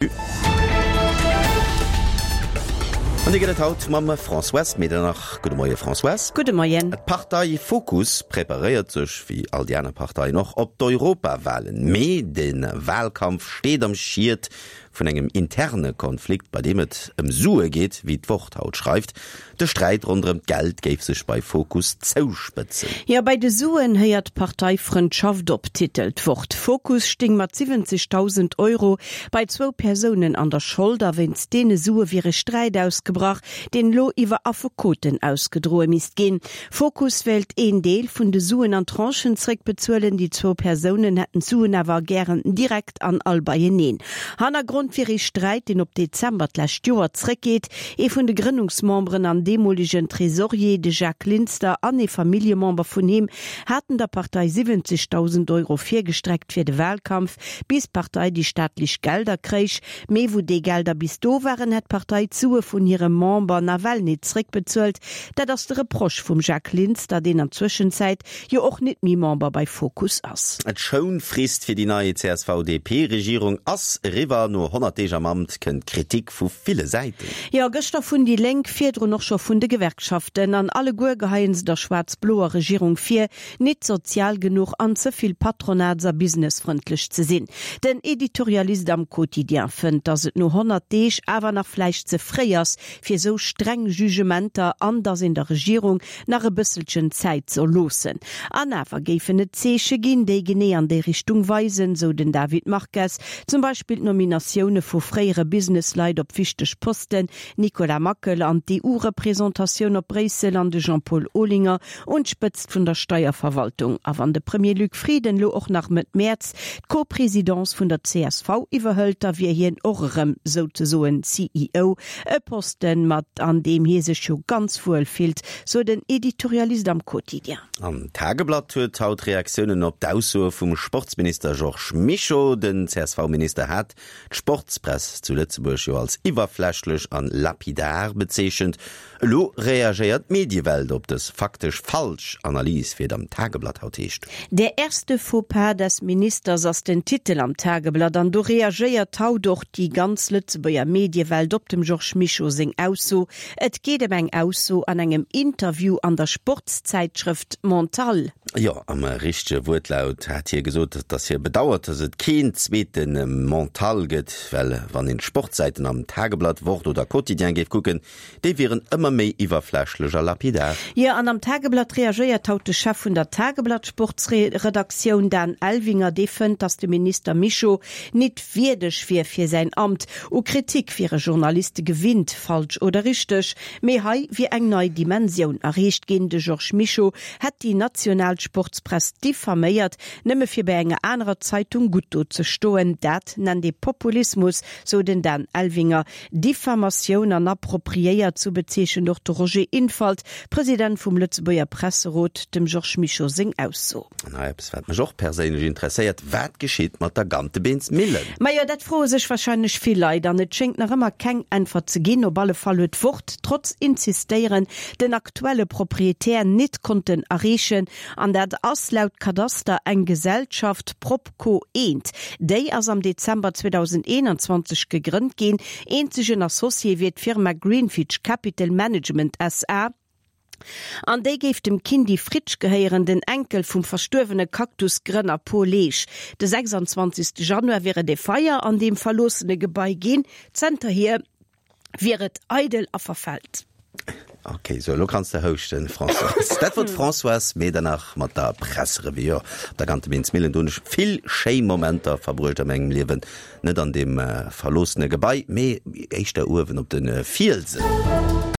An déi gëtt et haut mam Françoise Medernach. Gudde Moie Françoise. Gudde Moien. D'Partei Fokus preparéiert sech, wéi all déi aner Parteien och, op d'Europawalen. Mee de Walkampf steet am Schiet vun engem interne Konflikt, bei deem et ëm Sue geet, wéi d'Wort haut schreift. De Sträit ronderëm d'Geld géif sech bei Fokus zouspëtzen. Jo, bei de Suen héiert d'Parteifrëndschaft op, titelt d'Wort. Fokus sting mat 70.000 Euro bei zwou Persounen an der Schold a wéinst deene Sue wier e Sträit ausgebrach, deen elo iwwer Affekoten ausgedroe misst ginn. Fokus wéilt een Deel vun de Suen an Tranchen zréckbezuelen, déi zwou Persounen hätten d'Suen awer gären direkt an all beieneen. Hannergrond wier ee Sträit, deen op Dezember d'lescht Joer zréckgeet. Ee vun de Grënnungsmemberen an deemolegen Tresorier, de Jacques Linster, an ee Familljemember vun him haten der Partei 70.000 Euro virgestreckt fir de Wahlkampf, bis d'Partei déi staatlech Gelder kréich. Mee wou déi Gelder bis do waren, hätt d'Partei d'Sue vun hirem Member nawell nit zréckbezuelt. Dat ass de Reproche vum Jacques Linster, deen an Zwëschenzäit jo och nit méi Member bei Fokus ass. D'Schounfrist fir déi nei CSV-DP-Regierung ass eriwwer. No 100 Deeg am Amt kënnt Kritik vu ville Säiten. Jo, gëschter vun déi Lénk, virdrun och scho vun de Gewerkschaften. An alleguer geheien se der schwaarz-bloer Regierung vir, nit sozial genuch an ze vill patronats a businessfrëndlech ze sinn. Den Editorialist am Quotidien fënnt, datt et no 100 Deeg awer nach vläicht ze fréi ass fir esou streng Jugementer an datt een der Regierung nach e bësselchen Zäit soll loossen. An awer géifen et Zeeche ginn, déi genee an déi Richtung weisen, sou den David Marques, zum Beispill d'Nominatioune vu fréiere Businessleit op wichteg Posten, Nicolas Mackel an d'EU-Représentatioun op Bréissel an de Jean-Paul Olinger un d'Spëtzt vun der Steierverwaltung. A wann de Premier Luc Frieden lo och nach Mëtt Mäerz d'Co-Présidence vun der csv iwwerhëlt, da wier hien och erëm souzesoen CEO, e Posten, mat an deem hie sech jo ganz wuel fillt, sou den Editorialist am Quotidien. An d'Tageblatt huet haut Reaktiounen op d'Aussoe vum Sportsminister Georges Mischo. Den CSV-Minister hat d'Sportspress zu Lëtzebuerg jo als iwwerflächlech an lapidar bezeechent. Elo reagéiert d'Mediewelt op dës faktesch falsch Analys, wéi et am Tageblatt haut heescht. Der erste Fauxpas des Ministers ass den Titel am Tageblatt an do reagéiert haut och déi ganz Lëtzebuerger Mediewelt op dem Georges Mischo seng Ausso. Et geet ëm eng Ausso an engem Interview an der Sportszäitschrëft Mental. Jo, am richtege Wuertlaut hat hie gesot, datt hie bedauert, datt et keen zweete Mental gëtt, well wann een d'Sportsäiten am Tageblatt, Wort oder Quotidien géif kucken, Déi wieren ëmmer méi iwwerflächlech a lapidar. Jo, an am Tageblatt reagéiert haut de Chef vun der Tageblatt-Sportsredaktioun, Dan Elvinger. Dee fënnt, datt de Minister Mischo nit wierdeg wier fir säin Amt. U Kritik wiere Journaliste gewinnt, falsch oder richteg, mee hei wier eng nei Dimensioun erreecht ginn. De Georges Mischo hätt déi national Sportspress diffaméiert, nëmme fir bei enger anerer Zeitung gutt do ze stoen. Dat nennt ee Populismus, sou den Dan Elvinger. Diffamatioun an appropriéiert, sou bezeechent och de Roger Infalt, President vum Lëtzebuerger Presserot, dem Georges Mischo seng Ausso. An hei eppes, wat mech och perséinlech interesséiert, Wat geschitt mat der Gantebeensmillen? Majo, dat froe sech warscheinlech vill Leit an et schéngt nach ëmmer keng Äntwert ze ginn. Op alle Fall huet d'Wort, trotz Insistéieren, den aktuelle Proprietär nit konnten erreechen. An dat ass laut Kadaster eng Gesellschaft, Prop. Co Eent. Déi ass am Dezember 2021 gegrënnt ginn. Eenzegen Associé wier d'Firma Greenfitch Capital Management SA. An déi géif dem Kindy Fritsch gehéieren, den Enkel vum verstuerwene Cactus-Grënner Paul Leesch. De 26 Januar wier et e Feier an deem verloossene Gebai ginn. Zanterhier wier et eidel a verfält. Ok, sou elo kanns de houschten, Françoise. Dat wor d'Françoise Medernach mat der Presserevue. Jo, op der Gantebeensmillen, do hunn ech vill schéi Momenter verbruecht a mengem Liewen. Net an deem verloossene Gebai, mee éischter uewen op de Fielsen.